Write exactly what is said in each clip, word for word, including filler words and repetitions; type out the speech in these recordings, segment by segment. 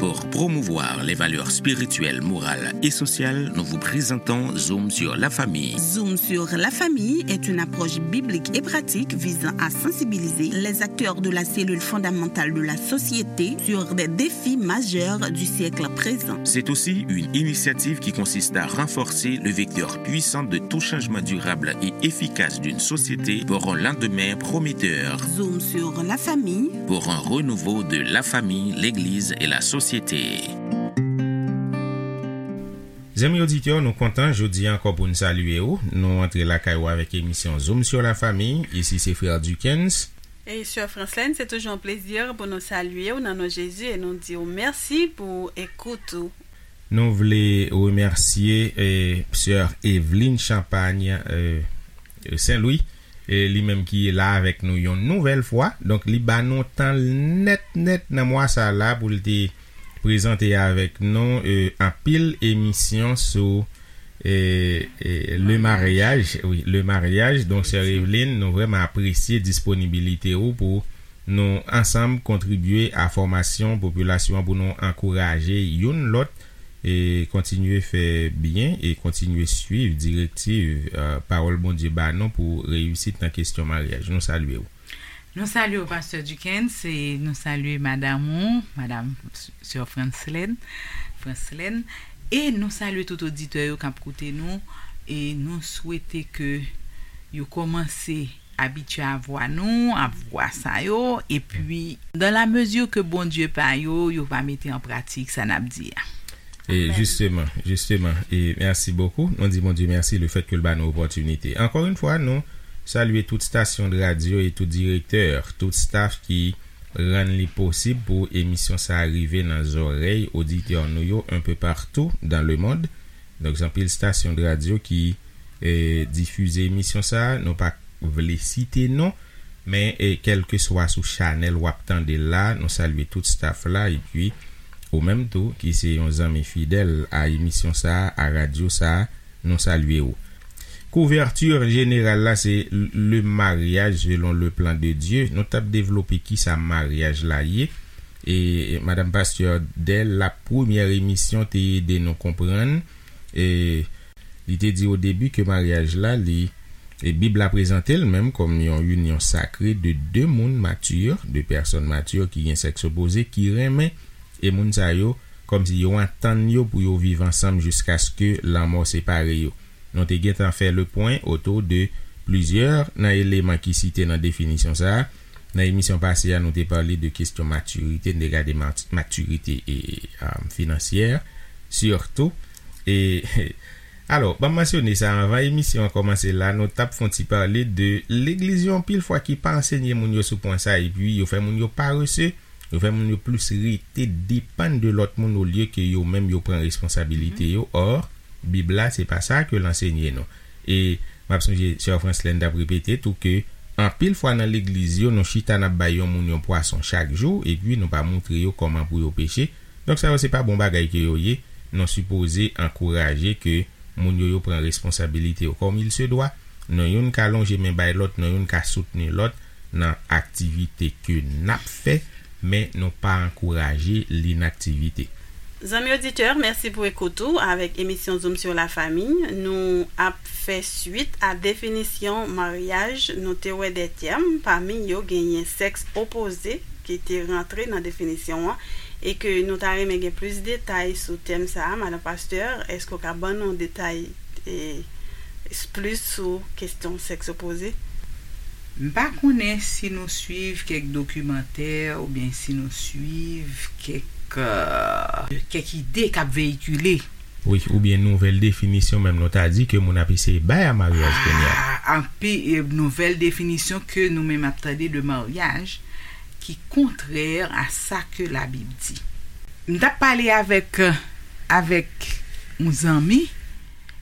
Pour promouvoir les valeurs spirituelles, morales et sociales, nous vous présentons Zoom sur la famille. Zoom sur la famille est une approche biblique et pratique visant à sensibiliser les acteurs de la cellule fondamentale de la société sur des défis majeurs du siècle présent. C'est aussi une initiative qui consiste à renforcer le vecteur puissant de tout changement durable et efficace d'une société pour un lendemain prometteur. Zoom sur la famille. Pour un renouveau de la famille, l'Église et la société. Zanmi oditè, nou kontan jodi a ankò pou n salye w. Nou antre lakay ou avèk emisyon Zoom sur la famille. Isi se frè Duckens. E sè Franslèn, se toujou yon plezi pou nou salye w nan non Jezi e nou di w mèsi pou ekout ou. Nou vle remèsye eh, sè Eveline Champagne eh, Saint-Louis, eh, li menm ki la avèk nou yon nouvèl fwa. Donk, li ba nou tan l nèt nèt nan mwa sa la pou l te prezante avèk nou eh, anpil emisyon sou eh, eh, le maryaj. Wi, le maryaj. Donk, sè Eveline, nou vrèman apresye disponibilite ou pou nou ansanm kontribye a fòmasyon popilasyon an pou nou ankouraje youn lòt e kontinye fè byen e kontinye swiv direktiv eh, pawòl Bondye ba nou pou reyisit nan kesyon maryaj. Nou salye w. Nou salye w, pastè Duckens, e nou salye madanm ou, madanm sè Franslèn, Franslèn, e nou salye tout oditè yo k ap koute nou, e nou swete ke yo kòmanse abitye a vwa nou, a vwa sa yo, epi dan la mezi ke Bondye pa yo, yo va mete an pratik sa n ap di a. E jisteman, jisteman, e mèsi bokou. Nou di Bondye mèsi le fèt ke l ba nou opòtinite. Ankò yon fwa, nou salye tout stasyon de radyo e tout direktè, tout staf ki rann li posib pou emisyon sa a rive nan zòrèy oditè nou yo un peu partout dans le monde. Donk, gen anpil stasyon de radyo ki eh, difize emisyon sa a. Nou pa vle site non, men eh, kèlkeswa sou chanèl w ap tande l la, nou salye tout staf la, epi ou menm tou, ki se yon zanmi fidèl a emisyon sa a, a radyo sa a, nou salye w. Kouvèti jeneral la, se le mariage selon le plan de Dieu. Nou t ap devlope kisa maryaj la ye. E madanm pastè, dè la premyè emisyon, te ede nou konprann, e li te di o debi ke maryaj la, li, e Bib la prezante l menm kòm yon inyon sakre de de moun mati, de pèsòn mati ki gen sèks opoze, ki renmen, e moun sa yo, kòmsi yo antann yo pou yo viv ansanm jiskaske lanmò separe yo. Nou te gentan fè le pwen otou de plizyè nan eleman ki site nan definisyon sa a. Nan emisyon pase a, nou te pale de kesyon matirite, n te gade mat- matirite e, e, um, finansyè, sitou. E, alò, ban m mansyone sa, anvan emisyon an kòmanse la, nou t ap fè yon ti pale de legliz yo anpil fwa ki pa ansenye moun yo sou pwen sa, epi yo fè moun yo parese, yo fè moun yo plis rete depann de lòt moun olye ke yo menm yo pran responsabilite yo. Or, Bib la, se pa sa ke l ansenye nou. E m ap sonje sè Franslèn t ap repete tou ke anpil fwa nan legliz yo, nou chita n ap bay yon moun yon pwason chak jou, epi nou pa montre yo kòman pou yo peche. Donk, sa yo se pa bon bagay ke yo ye. Nou sipoze ankouraje ke moun yo, yo pran responsabilite yo kòm il se dwa. Non youn ka lonje men bay lòt, non youn ka soutni lòt nan aktivite ke n ap fè, men nou pa ankouraje linaktivite. Zanmi oditè, mèsi pou ekout ou avèk emisyon Zoom sur la famille. Nou ap fè swit a definisyon maryaj. Nou te wè de tèm, pami yo genyen sèks opoze ki te rantre nan definisyon an, e ke nou ta renmen gen plis detay sou tèm sa a. Madan pastè, èske w ka ban nou detay e, plis sou kesyon sèks opoze? M pa konnen si nou swiv kèk dokimantè oubyen si nou swiv kèk, euh, kèk ide k ap veyikile. Wi, oubyen nouvèl definisyon menm nou ta di ke moun ap eseye bay a maryaj kounye a. Ah, anpi, e, nouvèl definisyon ke nou menm ap tande de maryaj ki kontrè a sa ke Labib di. M t ap pale avèk, avèk yon zanmi,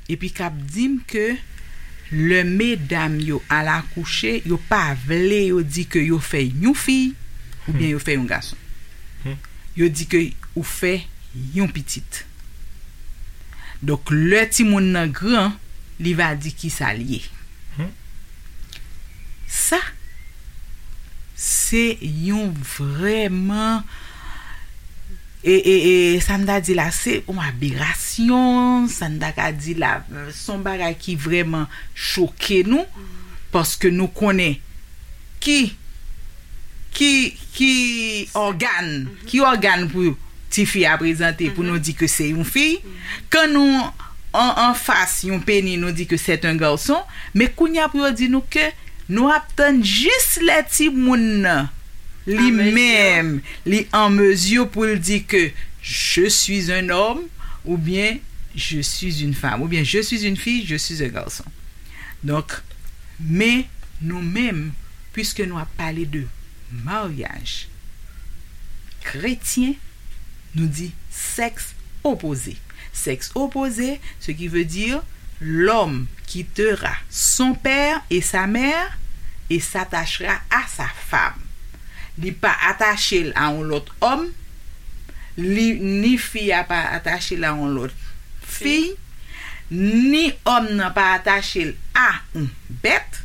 epi k ap di m ke lè medam yo al akouche, yo pa vle yo di ke yo fè yon fi oubyen yo fè yon gason. Yo di ke ou fè yon pitit. Donk, lè timoun nan gran, li va di kisa l ye. Sa, se yon vrèman E, e, e sa m ta di la, se yon aberasyon, sa m ta ka di la, se yon bagay ki vrèman choke nou, paske nou konnen ki, ki, ki ògàn, ki ògàn pou tifi a prezante pou nou di ke se yon fi. Kan nou an, anfas yon peni, nou di ke c'est un garçon, men kounye a pou yo di nou ke nou ap tann jis lè timoun nan li menm, li an mezi pou l di ke je suis un homme, oubyen je suis une femme, oubyen je suis une fille, je suis un garçon. Donk, men nou menm, piske nou ap pale de maryaj kretyen, nou di sexe opposé. Sexe opposé, ce qui veut dire l'homme quittera son père et sa mère et s'attachera à sa femme. Li pa atache l a yon lòt òm, li, ni fi a pa atache l a yon lòt fi, ni òm nan pa atache l a yon bèt,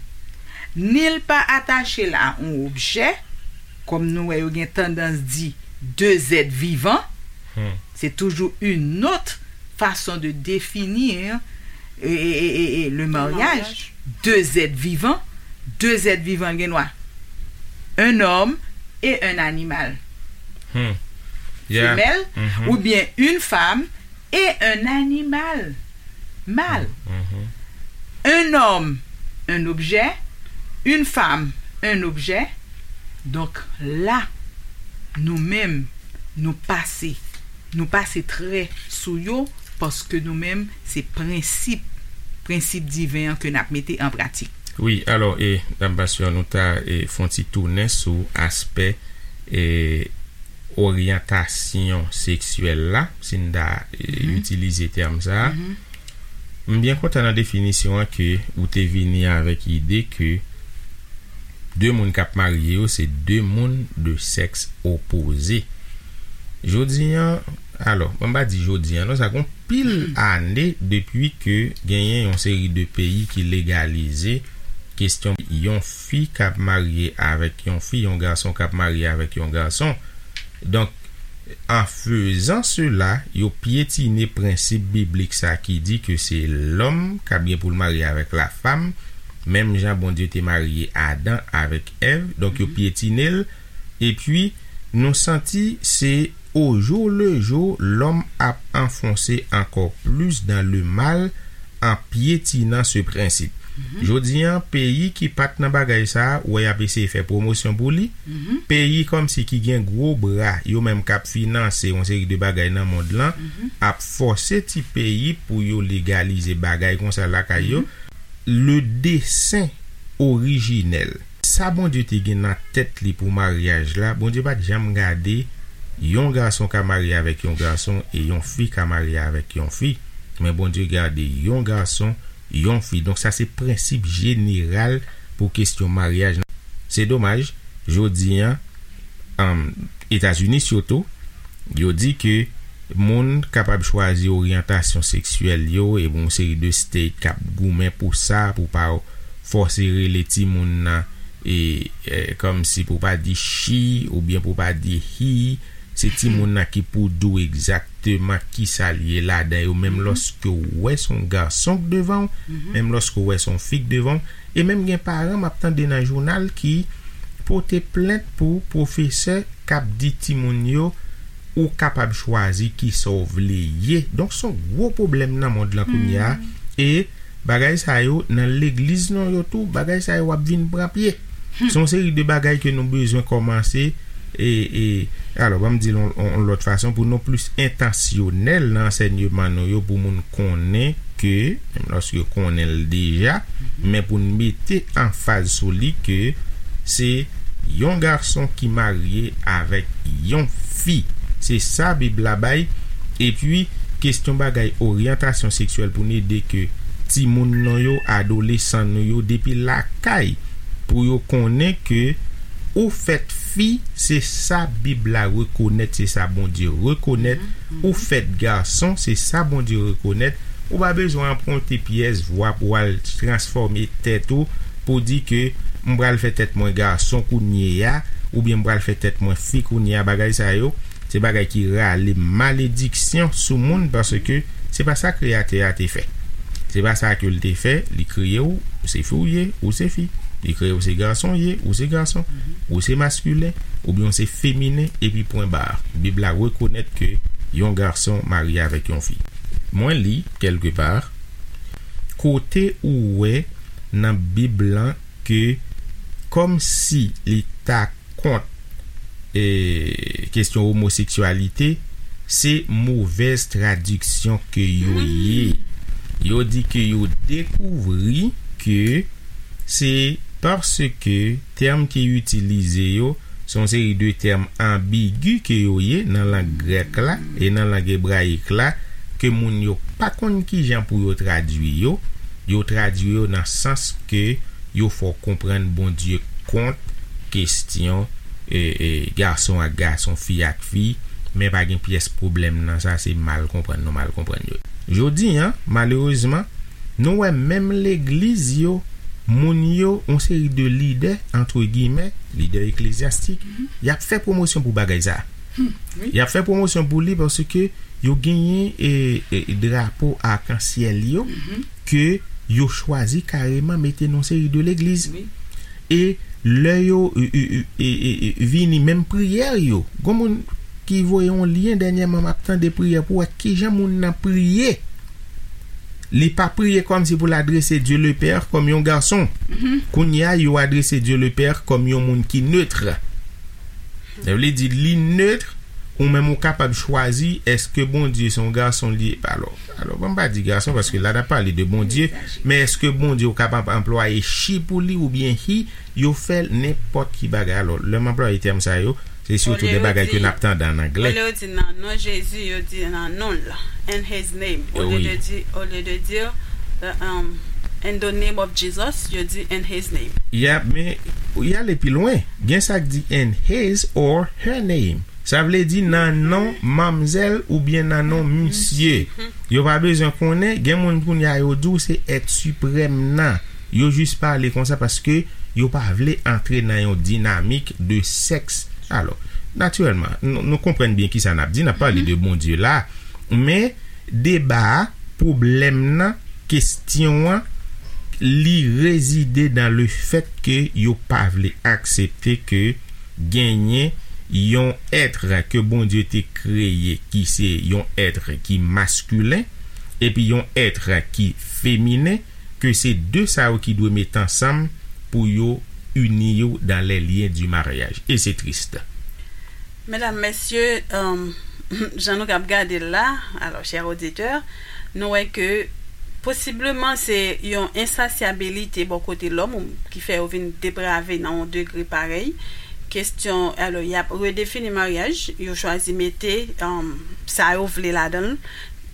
ni l pa atache l a yon objè, kòm nou wè yo gen tandans di deux êtres vivants, c'est toujours une autre façon de définir e, e, e, e, e, le mariage. Deux êtres vivants, deux êtres vivants gen dwa un homme et un animal femelle, oubyen une femme et un animal mâle. Un homme, un objet, une femme, un objet. Donk la, nou menm, nou pase, nou pase trè sou yo, paske nou menm, se prensip, prensip diven an ke n ap mete an pratik. Wi, alò, e, Dam Pasyon, nou ta, e, fè yon ti tounen sou aspè, e, oryantasyon seksyèl la, si n ta, e, itilize tèm sa a. M byen kontan nan definisyon an ke ou te vini avèk ide ke de moun k ap marye yo, se de moun de sèks opoze. Jodi an, alò, ban m pa di jodi an, non, sa gen pil ane depi ke genyen yon seri de peyi ki legalize kesyon yon fi k ap marye avèk yon fi, yon gason k ap marye avèk yon gason. Donk, an fezan sela, yo pyetine prensip biblik sa ki di ke se lòm k ap gen pou l marye avèk lafanm, menm jan Bondye te marye Adan avèk Èv. Donk, yo pyetine l. Epi, nou santi se au jour le jour, lòm ap anfonse ankò plis dans le mal en piétinant ce principe. Jodi an, peyi ki pa t nan bagay sa a, ou wè y ap eseye fè pwomosyon pou li. Peyi kòmsi ki gen gwo bra, yo menm k ap finanse yon seri de bagay nan mond lan, ap fòse ti peyi pou yo legalize bagay konsa lakay yo. Le dessein orijinèl. Sa Bondye te gen nan tèt li pou maryaj la, Bondye pa t janm gade yon gason ka marye avèk yon gason e yon fi ka marye avèk yon fi. Men Bondye gade yon gason, yon fi. Donk sa se prensip jeneral pou kesyon maryaj. Se domaj, jodi an, um, Etazini sitou, yo di ke moun kapab chwazi oryantasyon seksyèl yo, e yon seri de state k ap goumen pou sa, pou pa fòse rele timoun nan, e, e, kòmsi pou pa di she, oubyen pou pa di he, se timoun nan ki pou di w egzakteman kisa l ye ladan yo, menm lòske w wè se yon gason k devan w, menm lòske w wè se yon fi k devan w, e menm gen paran m ap tande nan jounal ki pote plent pou pwofesè k ap di timoun yo, ou kapab chwazi kisa w vle ye. Donk, se yon gwo pwoblèm nan mond lan kounye a. E bagay sa yo, nan legliz nou yo tou, bagay sa yo ap vin pran pye. Se yon seri de bagay ke nou bezwen kòmanse, e, e, alò, ban m di l yon, yon, yon lòt fason, pou nou plis entansyonèl nan ansèyman nou yo, pou moun konnen ke, menm lòske yo konnen l deja, men pou n mete anfaz sou li ke se yon gason ki marye avèk yon fi. Se sa Bib la bay. Epi, kesyon bagay oryantasyon seksyèl pou n ede ke timoun nou yo, adolesan nou yo, depi lakay, pou yo konnen ke ou fèt fi, se sa Bib la rekonèt, se sa Bondye rekonèt. Ou fèt gason, se sa Bondye rekonèt. Ou pa bezwen anpwonte pyès vwa pou w al transfòme tèt ou, pou di ke m pral fè tèt mwen gason kounye a, oubyen m pral fè tèt mwen fi kounye a, bagay sa yo, de bagay ki rale malediksyon sou moun, paske se pa sa Kreyatè a te fè. Se pa sa ke l te fè. Li kreye w, ou se fi w ye, ou se fi. Li kreye w, se gason w ye, ou se gason. Ou se maskilen, oubyen w se feminen, epi pwen ba. Bib la rekonèt ke yon gason marye avèk yon fi. Mwen li, kèlkepa, kote ou wè nan Bib lan ke kòmsi li ta kont e, kesyon omoseksyalite, se movèz tradiksyon ke yo ye. Yo di ke yo dekouvri ke se paske tèm ki itilize yo se yon seri de tèm anbigi ke yo ye nan lang grèk la e nan lang ebrayik la, ke moun yo pa konn kijan pou yo tradui yo. Yo tradui yo nan sans ke yo fè w konprann Bondye kont kesyon e, e, gason ak gason, fi ak fi, men pa gen pyès pwoblèm nan sa, se mal konprann nou mal konprann yo. Jodi a, malerezman, nou wè menm legliz yo, moun yo, yon seri de lidè, antre giyimè, lidè eklezyastik, y ap fè pwomosyon pou bagay sa. Y ap fè pwomosyon pou li paske yo genyen e, e, drapo akansyèl yo ke yo chwazi kareman mete nan yon seri de legliz. E lè yo e, e, e, e, e, e, vini, menm priyè yo, gon moun ki voye yon lyen dènyèman, m ap tande priyè pou wè kijan moun nan priye. Li pa priye kòmsi pou l adrese Dye le Pè kòm yon gason. Kounye a, yo adrese Dye le Pè kòm yon moun ki netre. Sa vle di li netre, ou menm ou kapab chwazi èske Bondye se yon gason li ye. Alò, alò, ban m pa di gason, paske la n ap pale de Bondye, men èske Bondye ou kapab anplwaye she pou li oubyen he, yo fè nenpòt ki bagay. Alò, lè m anplwaye tèm sa yo, se sitou de bagay ke n ap tande an anglè. Olye yo di nan non Jezi, yo di nan non l, in his name. Olye de di, olye de di, uh, um, in the name of Jesus, yo di in his name. Yeah, men y ale pi lwen. Gen sa k di in his or her name. Sa vle di nan non manmzèl oubyen nan non misye. Yo pa bezwen konnen, gen moun kounye a yo di w se èt siprèm nan. Yo jis pale konsa paske yo pa vle antre nan yon dinamik de sèks. Alò, natirèlman, nou, nou konprann byen kisa n ap di, n ap pale de Bondye la, men deba a, pwoblèm nan, kesyon an, li rezide nan le fèt ke yo pa vle aksepte ke genyen yon èt ke Bondye te kreye ki se yon èt ki maskilen, epi yon èt ki feminen, ke se de sa yo ki dwe met ansanm pou yo ini yo dans les liens du mariage. E se tris. Medam, mesye, um, jan nou k ap gade l la, alò, chè oditè, nou wè ke posibleman se yon ensasyabilite bò kote lòm ou ki fè yo vin deprave nan yon degre parèy. Kesyon, alò, y ap redefini maryaj, yo chwazi mete, um, sa yo vle ladan l,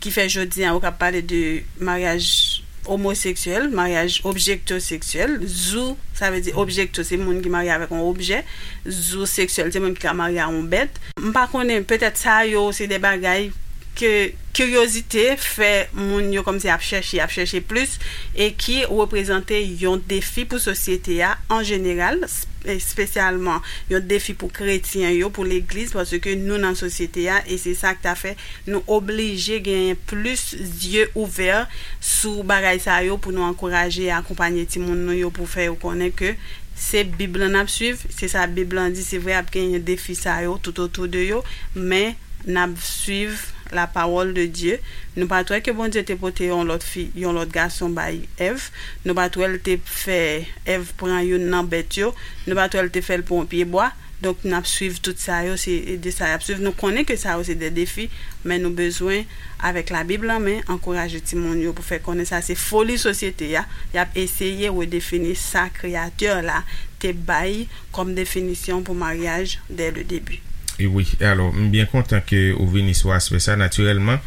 ki fè jodi a, ou ka pale de maryaj omoseksyèl, maryaj objektoseksyèl, zou, sa vle di objekto, se moun ki marye avèk yon objè, zou seksyèl, se moun ki ka marye a yon bèt. M pa konnen, petèt sa yo, se de bagay ke kiryozite fè moun yo kòmsi ap chèche, ap chèche plis, e ki reprezante yon defi pou sosyete a an jeneral, s-, espesyalman yon defi pou kretyen yo, pou legliz, paske nou nan sosyete a, e se sa k ta fè nou oblije genyen plis zye ouvè sou bagay sa yo pou nou ankouraje e akonpanye timoun nou yo, pou fè yo konnen ke se Bib lan n ap swiv, se sa Bib lan di, se vre ap genyen defi sa yo tout otou de yo, men n ap swiv la parole de Dieu. Nou pa t wè ke Bondye te pote yon lòt fi, yon lòt gason bay Èv. Nou pa t wè l te fè Èv pran youn nan bèt yo. Nou pa t wè l te fè l pran yon pye bwa. Donk, n ap swiv tout sa yo, se de sa y ap swiv. Nou konnen ke sa yo se de defi, men nou bezwen, avèk Labib lan men, ankouraje timoun yo pou fè konnen sa se foli sosyete a, y ap eseye redefini sa Kreyatè la te bay kòm definisyon pou maryaj dès le début. E wi, alò, m byen kontan ke ou vini sou aspè sa. Natirèlman,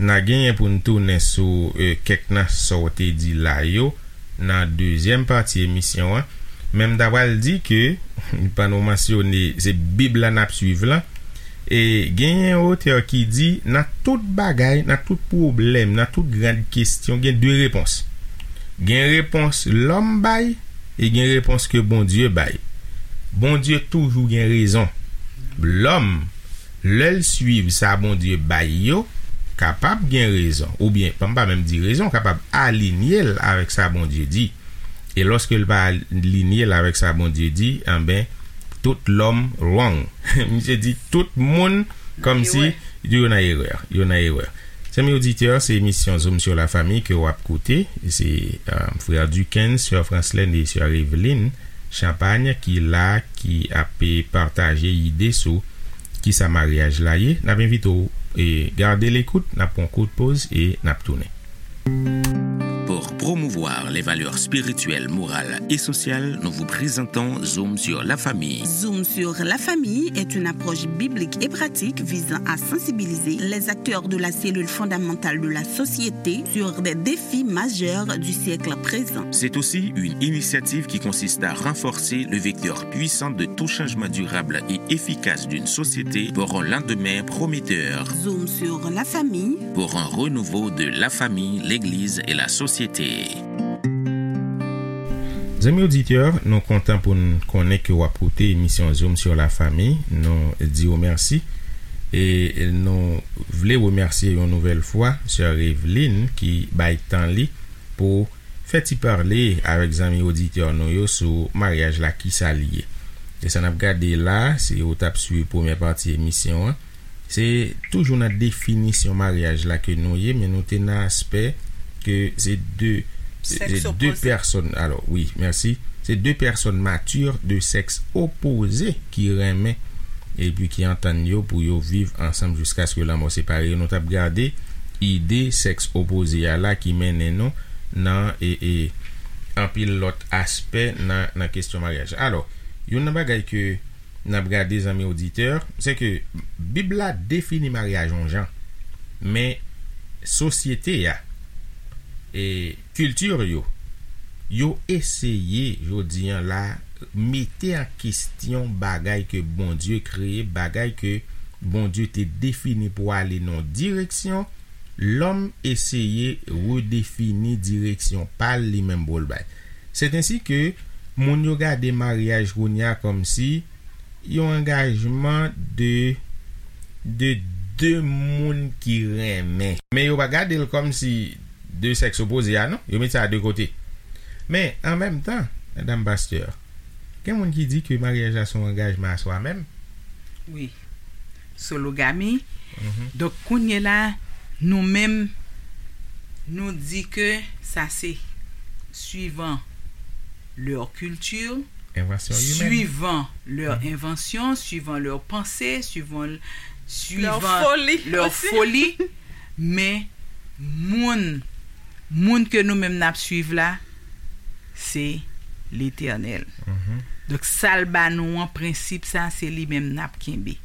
n a genyen pou n tounen sou, e, kèk nan sa w te di la yo nan dezyèm pati emisyon an. Men m ta pral di ke, pandan w mansyone, se Bib la n ap swiv lan. E genyen otè ki di, nan tout bagay, nan tout pwoblèm, nan tout gran kesyon, gen de repons. Gen repons lòm bay, e gen repons ke Bondye bay. Bondye toujou gen rezon. Lòm, Lè l suiv sa Bondye bay yo, kapab gen rezon, oubyen, pa m pa menm di rezon, kapab alinye l avèk sa Bondye di. E lòske l pa alinye l avèk sa Bondye di, anben, tout lòm wrong. Misye di tout moun kòmsi yo nan erè, yo nan erè. Zanmi oditè, se emisyon Zoom sur la famille ke w ap koute. Se, euh, frè Duckens, sè Franslène e sè Eveline Champagne ki la, ki ap pataje ide sou kisa maryaj la ye. N ap envite w e gade lekout, n ap pran kout poz e n ap tounen. Pour promouvoir les valeurs spirituelles, morales et sociales, nous vous présentons Zoom sur la famille. Zoom sur la famille est une approche biblique et pratique visant à sensibiliser les acteurs de la cellule fondamentale de la société sur des défis majeurs du siècle présent. C'est aussi une initiative qui consiste à renforcer le vecteur puissant de tout changement durable et efficace d'une société pour un lendemain prometteur. Zoom sur la famille. Pour un renouveau de la famille, l'Église et la société. Zanmi oditè, nou kontan pou n konnen ke w ap koute emisyon Zoom sur la famille. Nou di w mèsi. E nou vle remèsye yon nouvèl fwa sè Eveline ki bay tan li pou fè ti pale avèk zanmi oditè nou yo sou maryaj la, kisa l ye. E sa n ap gade la, si w t ap swiv premyè pati emisyon an, se toujou nan definisyon maryaj la ke nou ye, men nou te nan aspè ke se de, se de pèsòn, alò, wi, mèsi. Se de pèsòn mati de sèks opoze ki renmen epi ki antann yo pou yo viv ansanm jiskaske lanmò separe yo. Nou t ap gade ide sèks opoze a la ki mennen nou nan e, e, anpil lòt aspè nan, nan kesyon maryaj. Alò, youn nan bagay ke n ap gade, zanmi oditè, se ke Bib la defini maryaj yon jan, men sosyete a, e kilti yo, yo eseye, jodi a la, mete an kesyon bagay ke Bondye kreye, bagay ke Bondye te defini pou ale nan yon direksyon, lòm eseye redefini direksyon pa l li menm pou l bay. Sètensi ke moun yo gade maryaj kounye a kòmsi yon angajman de, de de moun ki renmen. Men yo pa gade l kòmsi de sèks opoze a, non. Yo met sa de kote. Men, an menm tan, madanm pastè, gen moun ki di ke maryaj la se yon angajman a swa menm. Wi. Sologami. Mhm. Donk, kounye la, nou menm, nou di ke sa se suivant leur culture, Invention humaine. Suivant leur invention, suivant leur pensée, suivant, leur suivant folie leur aussi. Folie. Men moun, moun ke nou menm n ap suiv la, se Letènèl. Mhm. Donk, sa l ba nou an prensip sa, se li menm n ap kenbe.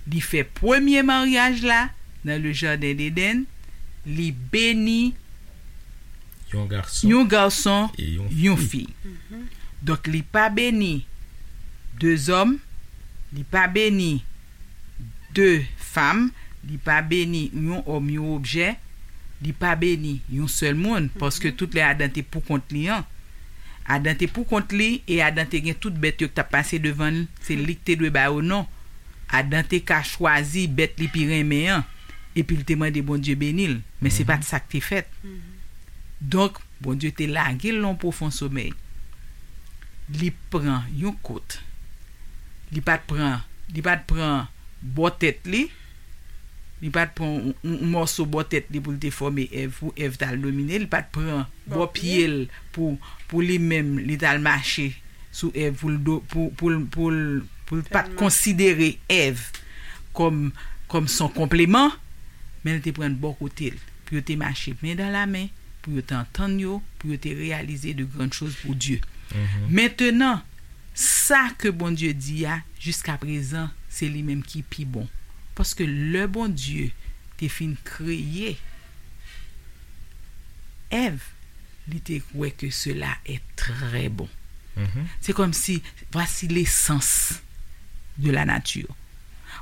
Li fè premye maryaj la nan le jardin d'Éden, li beni yon gason, yon gason, e yon, yon fi. Fi. Mhm. Donk, li pa beni de zòm, li pa beni de fanm, li pa beni yon òm, yon objè, li pa beni yon sèl moun, paske tout lè Adan te pou kont li an. Adan te pou kont li, e Adan te gen tout bèt yo k t ap pase devan l, se li k te dwe ba yo non. Adan te ka chwazi bèt li pi renmen an, epi l te mande Bondye beni l, men se pa t sa k te fèt. Mhm. Donk, Bondye te lage l nan yon pwofon somèy. Li pran yon kout. Li pa t pran, li pa t pran bò tèt li. Li pa t pran yon, yon, yon mòso bò tèt li pou l te fòme Èv, pou Èv t al domine. Li pa t pran bò pye l pou, pou li menm, li t al mache sou Èv, pou l do-, pou, pou l, pou l, pou l pa t konsidere Èv kòm, kòm son konpleman, men l te pran l bò kote l, pou yo te mache men dan la men, pou yo te antann yo, pou yo te reyalize de grann choz pou Dye. Mhm. Mentenan, sa ke Bondye di a, jiska prezan, se li menm ki pi bon. Paske lè Bondye te fin kreye Èv, li te wè ke cela est très bon. Mhm. C'est comme si, voici l'essence de la nature.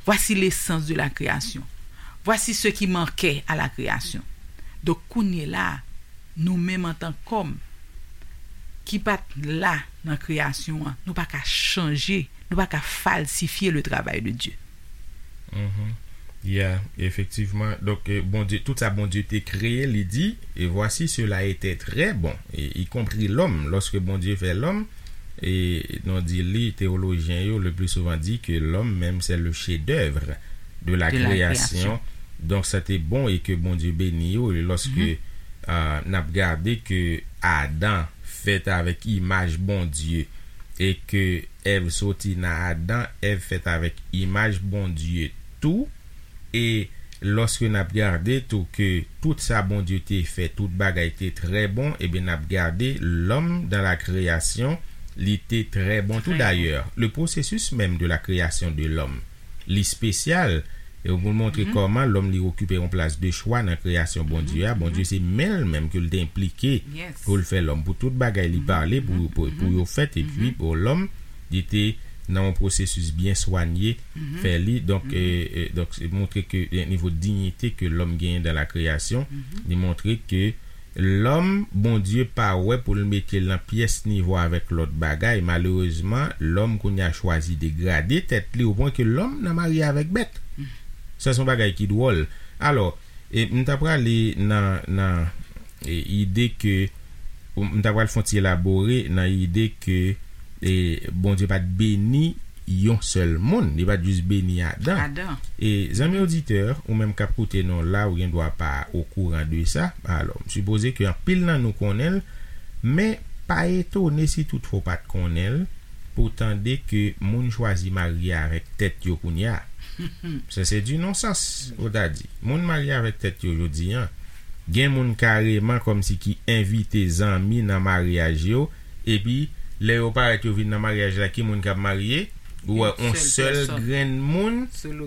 Voici l'essence de la création. Voici ce qui manquait à la création. Donk, kounye la, nou menm antan k'òm ki pa t la nan kreyasyon an, nou pa ka chanje, nou pa ka falsifye le travay de Dye. Mhm. Yeah, efektivman. Donk, eh, Bondye, tout sa Bondye te kreye, li di, et voici, cela était très bon, et y compris l'homme, lorsque Bondye fè lòm, e nou di li, teyolojyen yo le plus souvent di ke lòm menm se le chef d'œuvre de la création. Donk, sa te bon e ke Bondye beni yo, e lòske ah, n ap gade ke Adan fèt avèk imaj Bondye, e ke Èv soti nan Adan, Èv fèt avèk imaj Bondye tou. E lòske n ap gade tou ke tout sa Bondye te fè, tout bagay te trè bon, ebyen n ap gade lòm dan la kreyasyon, li te trè bon tou. Dayè, le processus même de la création de l'homme, li espesyal, e pou l montre kòman lòm li okipe yon plas de chwa nan kreyasyon Bondye a. Bondye se men l menm ke l te enplike pou l fè lòm, pou tout bagay li pale pou, pou, pou yo fèt, epi pou lòm, li te nan yon pwosesis byen swanye fè li. Donk, e, e, donk, se montre ke, e, nivo diyite ke lòm genyen dan la kreyasyon, li montre ke lòm, Bondye pa wè pou l mete l nan pyès nivo avèk lòt bagay. Malerezman, lòm kounye a chwazi degrade tèt li, opwen ke lòm nan marye avèk bèt. Sa se yon bagay ki dwòl. Alò, e, m ta prale nan, nan, e, ide ke, m ta pral fè yon ti elabore nan ide ke, e, Bondye pa t beni yon sèl moun, li pa t jis beni Adan. Adan. E zanmi oditè, ou menm k ap koute nou la, ou gen dwa pa okouran de sa. Alò, m sipoze ke anpil nan nou konnen l, men pa etone si toutfwa w pa t konnen l, pou w tande ke moun chwazi marye avèk tèt yo kounye a. Sa se di nonsans, ou ta di. Moun marye avèk tèt yo jodi a. Gen moun kareman kòmsi ki envite zanmi nan maryaj yo, epi lè yo parèt yo vin nan maryaj la, ki moun k ap marye? Ou wè yon sèl grenn moun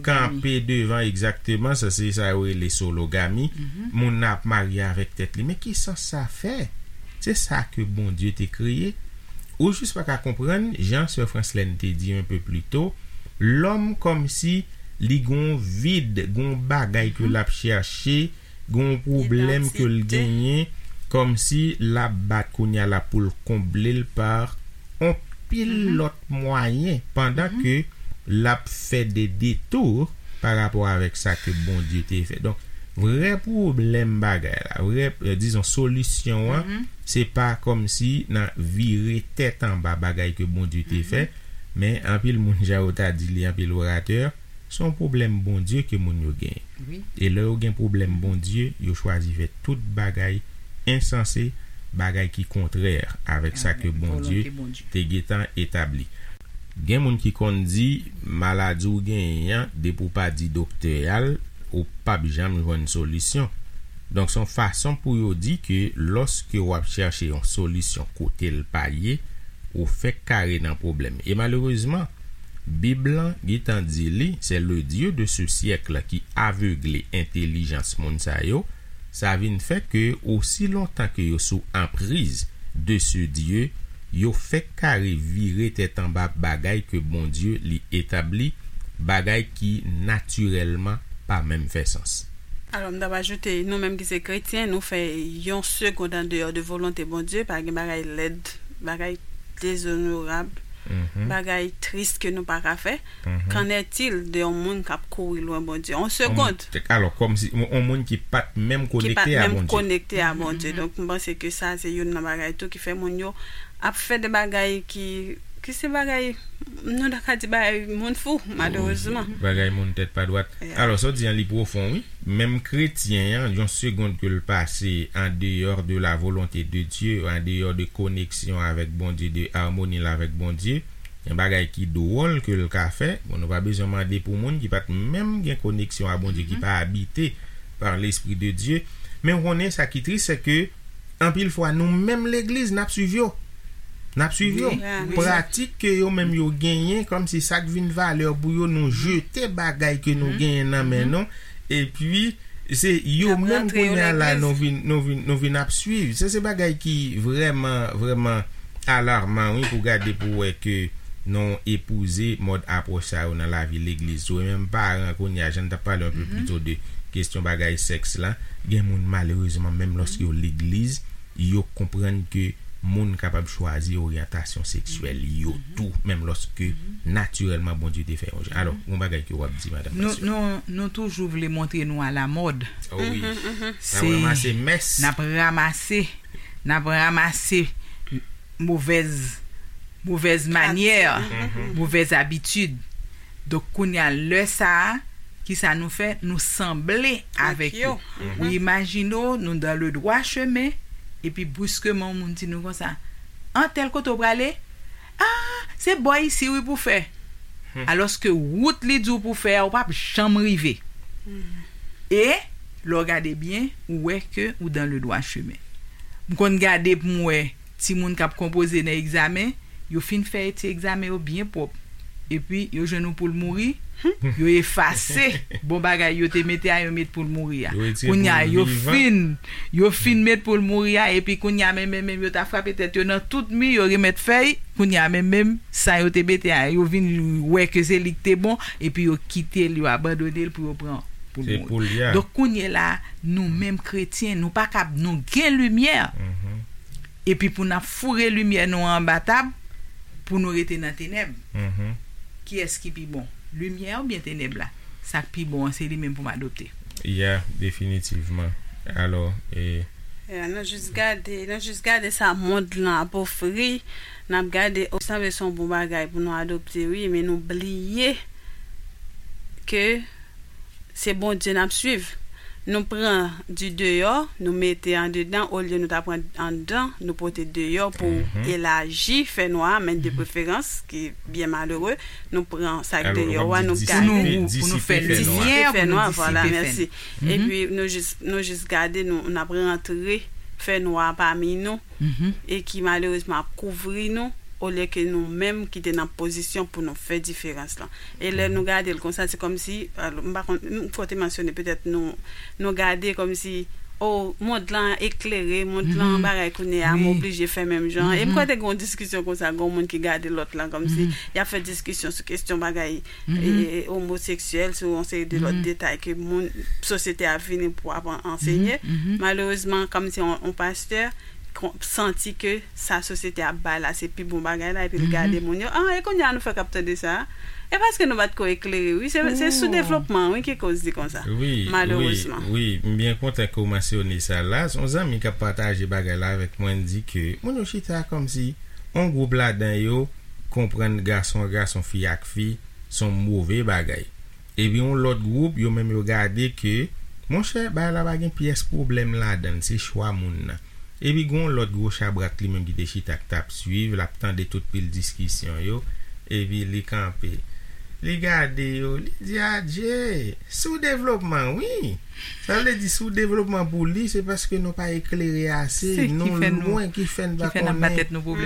kanpe devan, egzakteman, sa se sa yo rele sologami. Moun nan ap marye avèk tèt li. Men ki sans sa fè? Se sa ke Bondye te kreye. Ou jis pa ka konprann, jan sè Franslèn te di un peu plus tôt, lòm kòmsi li gon vid, gon bagay ke l ap chèche, gon pwoblèm ke l genyen, kòmsi l ap bat kounye a la pou l konble l pa on pil lòt mwayen, pandan ke l ap fè de detou pa rapò avèk sa ke Bondye te fè. Donk, vrè pwoblèm bagay la, vrè, eh, dizon, solisyon an, se pa kòmsi nan vire tèt anba bagay ke Bondye te fè, men anpil moun, jan yo ta di li, anpil oratè, se yon pwoblèm Bondye ke moun yo genyen. E lè yo gen pwoblèm Bondye, yo chwazi fè tout bagay ensanse, bagay ki kontrè avèk sa ke Bondye te gentan etabli. Gen moun ki konn di, maladi w genyen an, depi w pa di doktè a l, ou p ap janm jwenn solisyon. Donk, se yon fason pou yo di ke lòske w ap chèche yon solisyon kote l pa ye, ou fèk kare nan pwoblèm. E malerezman, Bib lan gentan di li, c'est le Dieu de ce siècle qui aveugle entèlijans moun sa yo. Sa vin fè ke osi lontan ke yo sou anpriz de ce Dieu, yo fèk kare vire tèt anba bagay ke Bondye li etabli, bagay ki natirèlman pa menm fè sans. Alò, m t ap ajoute, nou menm ki se kretyen, nou fè yon segond andeyò de volonte Bondye, pa gen bagay lèd, bagay dezonorab, bagay tris ke nou pa ka fè. Qu'en est-il de yon moun k ap kouri lwen Bondye? Yon segond. Alò, kòmsi, yon, yon moun ki pa t menm konekte a Bondye. Ki pa t menm konekte a Bondye. Donk, m panse ke sa, se youn nan bagay tou ki fè moun yo ap fè de bagay ki, ki se bagay, nou ta ka di bagay moun fou, malerezman. Bagay moun tèt pa dwat. Alò, sa w di an, li pwofon, wi. Menm kretyen an, yon segond ke l pase en dehors de la volonté de Dieu, en dehors de koneksyon avèk Bondye, de amoni l avèk Bondye, yon bagay ki dwòl ke l ka fè. Bon, nou pa bezwen mande pou moun ki pa t menm gen koneksyon a Bondye, ki pa abite par l'Esprit de Dieu. Men w konnen sa ki tris, se ke anpil fwa, nou menm legliz, n ap swiv yo. N ap swiv yo. Pratik ke yo menm yo genyen, kòmsi sa k vin valè pou yo, nou jete bagay ke nou genyen nan men nou. Epi, se yo menm kounye a la, nou vin, nou vin, nou vin ap swiv. Se, se bagay ki vrèman, vrèman alarman, wi, pou gade, pou wè ke nou epouze mòd apwòch sa yo nan lavi legliz. Ou menm paran kounye a, jan n t ap pale un peu plus tôt de kesyon bagay sèks la, gen moun, malerezman, menm lòske yo legliz, yo konprann ke moun kapab chwazi oryantasyon seksyèl yo tou, menm lòske natirèlman Bondye te fè yon jan. Alò, yon bagay ke w ap di, Madanm Pasyon. Nou, nou, nou toujou vle montre nou alamòd. Oh wi. N ap ranmase mès. N ap ranmase, n ap ranmase movèz, movèz manyè, movèz abitid. Donk, kounye a, lè sa a, kisa nou fè? Nou sanble avèk yo. Ou imajine w, nou dans le droit chemin, epi briskeman, yon moun di nou konsa, an tèl kote w prale? Ah, se bò isi wi pou fè. Alòske wout li di w pou fè a, ou p ap janm rive. E, lè w gade byen, ou wè ke ou dans le droit chemin. M konn gade pou m wè timoun k ap konpoze nan egzamen, yo fin fè ti egzamen yo byen pwòp. Epi, yo jwenn yon poul mouri, yo efase bon bagay yo te mete a, yo met poul mouri a. Yo retire poul vivan. Kounye a, yo fin, yo fin met poul mouri a, epi kounye a, menm, menm, menm, yo ta frape tèt yo nan tout mi, yo remèt fèy, kounye a, menm, menm, sa yo te mete a, yo vin wè ke se li k te bon, epi yo kite l, yo abandone l pou yo pran poul mouri. Se poul li a. Donk, kounye la, nou menm kretyen, nou pa kab, nou gen limyè. Epi pou n ap foure limyè nou an anba tab, pou nou rete nan tenèb. Kiyès ki pi bon? Limyè oubyen tenèb la? Sa k pi bon an, se li menm pou m adopte. Ya, definitivman. Alò, e, Ya, nou jis gade, nou jis gade sa mond lan ap ofri. N ap gade, o, sanble se yon bon bagay pou nou adopte, wi, men nou bliye ke se Bondye n ap swiv. Nou pran di deyò, nou mete andedan, olye nou ta pran anndan, nou pote deyò pou elaji fènwa a, men de preferans, ki byen malere, nou pran sa k deyò a, nou gade. Pou nou, pou nou fè limyè, pou nou disipe fènwa. Vwala, mèsi. Epi nou jis, nou jis gade, nou, n ap rantre fènwa a pami nou, e ki malerezman ap kouvri nou, olye ke nou menm ki te nan pozisyon pou nou fè diferans lan. E lè nou gade l konsa, se kòmsi, alò, m pa konn, m, fò te mansyone, petèt nou, nou gade kòmsi, o, mond lan eklere, mond lan bagay kounye a, m oblije fè menm jan. E m kwè te gen yon diskisyon konsa, gen yon moun ki gade lòt lan, kòmsi y ap fè diskisyon sou kesyon bagay, e, omoseksyèl, sou yon seri de lòt detay ke moun, sosyete a vini pou ap an-, ansenye. Malerezman, kòmsi yon, yon pastè, kon-, santi ke sa sosyete ap bay la, se pi bon bagay la, epi l gade moun yo, ah, e kounye a nou fèk ap tande sa. E paske nou pa t ko eklere, wi, se, se soudevlopman, wi, ki koz li konsa. Wi, malerezman. Wi, wi, m byen kontan ke w mansyone sa la. Se yon zanmi k ap pataje bagay la avèk mwen, l di ke moun yo chita kòmsi yon gwoup ladan yo konprann gason ak gason, fi ak fi, se yon move bagay. Epi yon lòt gwoup, yo menm yo gade ke, monchè, bagay la pa gen pyès pwoblèm ladan l, se chwa moun nan. Epi gen yon lòt gwo chabrak li menm ki te chita k t ap swiv, l ap tande tout pil diskisyon yo, epi li kanpe. Li gade yo, li di, adje, soudevlopman, wi. Sa vle di, soudevlopman pou li, se paske nou pa eklere ase, nou lwen ki fè n pa konnen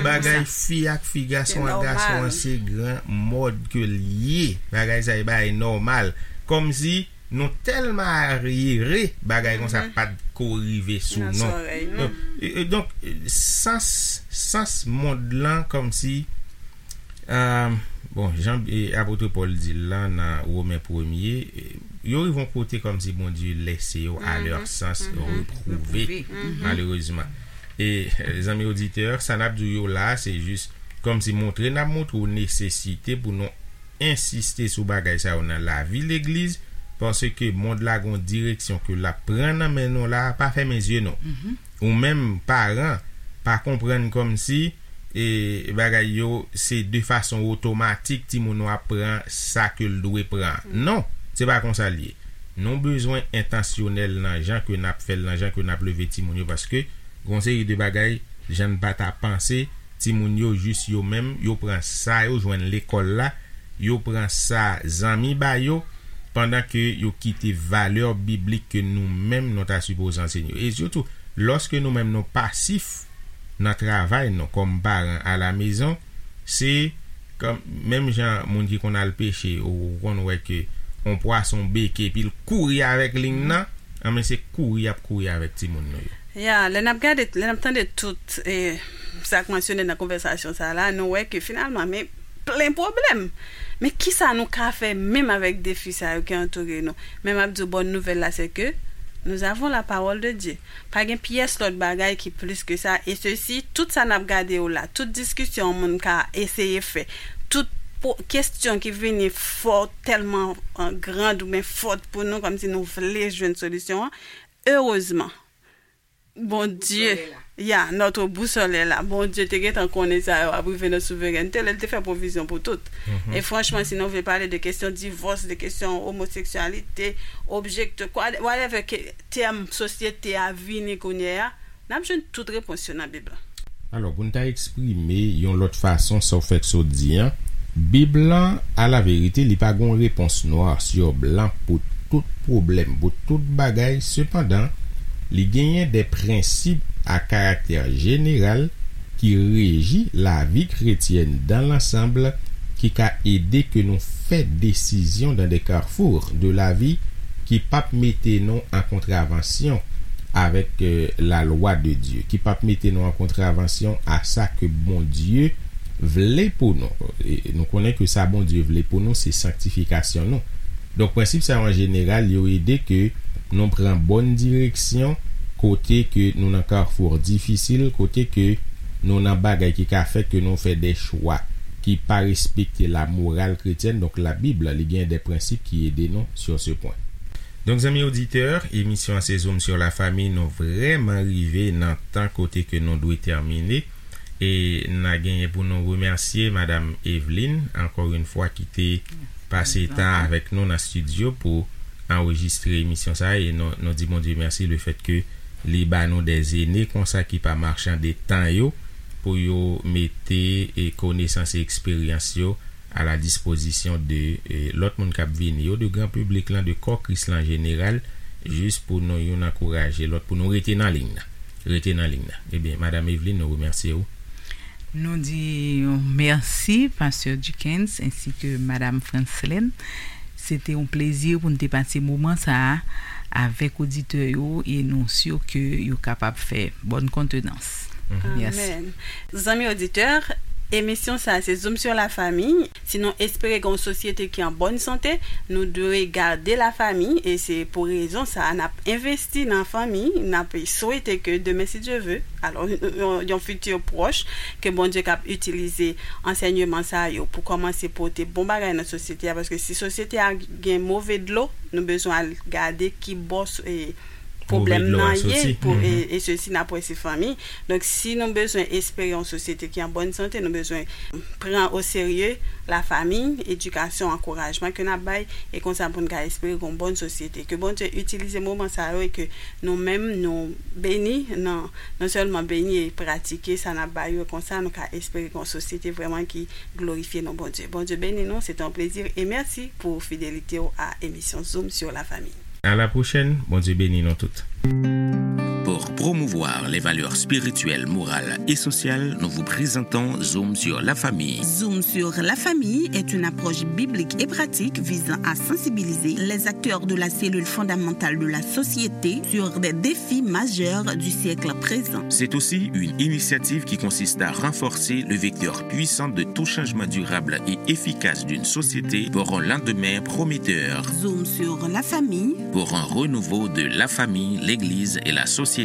bagay fi ak fi, gason ak gason an, se gran mòd ke l ye. Bagay sa, e bagay nòmal. Kòmsi nou tèlman aryere, bagay konsa pa t ko rive sou nou. Donk, e, e, donk, e, sans, sans mond lan, kòmsi, e, bon, jan, e, apot Pòl di l lan nan Women premye, e, yo rive yon kote kòmsi Bondye lèse yo à leur sens reprouvé, malerezman. E, e, zanmi oditè, sa n ap di w yo la, se jis kòmsi montre n ap montre w nesesite pou nou ensiste sou bagay sa yo nan lavi legliz, paske mond la gon direksyon ke l ap pran nan men nou la, pa fèmen zye nou. Ou menm, paran, pa konprann kòmsi, e, bagay yo se de fason otomatik timoun ou ap pran sa ke l dwe pran. Non, se pa konsa l ye. Nou bezwen entansyonèl nan jan ke n ap fè l, nan jan ke n ap leve timoun yo, paske gon seri de bagay, jan n pa ta panse, timoun yo jis yo menm, yo pran sa yo jwenn lekòl la, yo pran sa zanmi ba yo, pandan ke yo kite valè biblik ke nou menm nou ta sipoze ansenye yo. E sitou, lòske nou menm nou pasif nan travay nou kòm paran alamezon, se kòm, menm jan moun ki konn al peche, ou, ou konn wè ke yon pwason beke, epi l kouri avèk liy nan, anben se kouri y ap kouri avèk timoun nou yo. Ya, lè n ap gade, lè n ap tande tout, e, sa k mansyone nan konvèsasyon sa la, nou wè ke finalman, men plen pwoblèm. Men kisa nou ka fè menm avèk defi sa yo ki antoure nou? Men m ap di w, bòn nouvèl la, se ke Nous avons la parole de Dieu. Pa gen pyès lòt bagay ki plis ke sa. E sesi, tout sa n ap gade yo la, tout diskisyon yon moun ka eseye fè, tout po- kesyon ki vini fò, tèlman, eh, grand oubyen fòt pou nou, kòmsi nou vle jwenn solisyon an, erezman, Bondye, ya, notre boussole est là. Bondye te gentan konnen sa yo ap rive nan souverènte, lè l te fè pwovizyon pou tout. E franchman, si nou vle pale de kesyon divòs, de kesyon omoseksyalite, objekte, kwa- whatever ke tèm sosyete a vini kounye a, n ap jwenn tout repons yo nan Bib la. Alò, pou n ta eksprime yon lòt fason sa w fèk sot di an, Bib lan, alaverite, li pa gon repons nwa sou blan pou tout pwoblèm, pou tout bagay. Sepandan, li genyen de prensip a karaktè jeneral ki reji lavi kretyèn dan lansanb, ki ka ede ke nou fè desizyon dan de carrefours de la vie ki p ap mete nou an kontravansyon avèk, eh, la lwa de Dye, ki p ap mete nou an kontravansyon a sa ke Bondye vle pou nou. E nou konnen ke sa Bondye vle pou nou, se sanktifikasyon nou. Donk, prensip sa yo an jeneral, yo ede ke nou pran bòn direksyon kote ke nou nan kafou difisil, kote ke nou nan bagay ki ka fè ke nou fè de chwa ki pa respekte la moral kretyèn. Donk, la Bib, li gen de prensip ki ede nou sur ce point. Donk, zanmi oditè, emisyon an se Zoom sur la famille, nou vrèman rive nan tan kote ke nou dwe tèmine. E n a genyen pou nou remèsye Madam Eveline, ankò yon fwa, ki te pase tan avèk nou nan estidyo pou anrejistre emisyon sa a. E nou, nou di Bondye mèsi le fèt ke li ba nou de zene konsa ki pa machann de tan yo pou yo mete, e, konesans e eksperyans yo a la dispozisyon de, e, lòt moun k ap vini yo, de gran piblik lan, de kò Kris lan an jeneral, jis pou nou youn ankouraje lòt, pou nou rete nan liy nan. Rete nan liy nan. Ebyen, Madam Eveline, nou remèsye w. Nou di yon mèsi, Pastè Dickens, ensi ke Madam Franslène. Se te yon plezi pou n te pase moman sa a avèk oditè yo e nou si ke yo kapab fè bòn kontenans. Mèsi. Amèn. Zanmi oditè, emisyon sa a se Zoom sur la famille. Si nou espere gen yon sosyete ki an bòn sante, nou dwe gade lafanmi, e se pou rezon sa a n ap envesti nan fanmi, n ap swete ke demen, si Dye ve, alò, yon, yon fiti pwòch, ke Bondye k ap itilize ansèyman sa yo pou kòmanse pote bon bagay nan sosyete a, paske si sosyete a gen move dlo, nou bezwen al gade ki bò s- e, pwoblèm nan ye, pou, e, e sesi n ap wè se fanmi. Donk, si nou bezwen espere yon sosyete ki an bòn sante, nou bezwen pran o serye lafanmi, edikasyon, ankourajman ke n ap bay, e konsa pou n ka espere yon bòn sosyete. Ke Bondye itilize moman sa yo e ke nou menm nou beni, nan, non sèlman beni e pratike sa n ap bay yo, e konsa nou ka espere yon sosyete vrèman ki glorifye non Bondye. Bondye beni nou, se te yon plezi e mèsi pou fidelite w a emisyon Zoom sur la famille. À la prochaine, Bondye beni nou tout. Pour promouvoir les valeurs spirituelles, morales et sociales, nous vous présentons Zoom sur la famille. Zoom sur la famille est une approche biblique et pratique visant à sensibiliser les acteurs de la cellule fondamentale de la société sur des défis majeurs du siècle présent. C'est aussi une initiative qui consiste à renforcer le vecteur puissant de tout changement durable et efficace d'une société pour un lendemain prometteur. Zoom sur la famille. Pour un renouveau de la famille, l'Église et la société.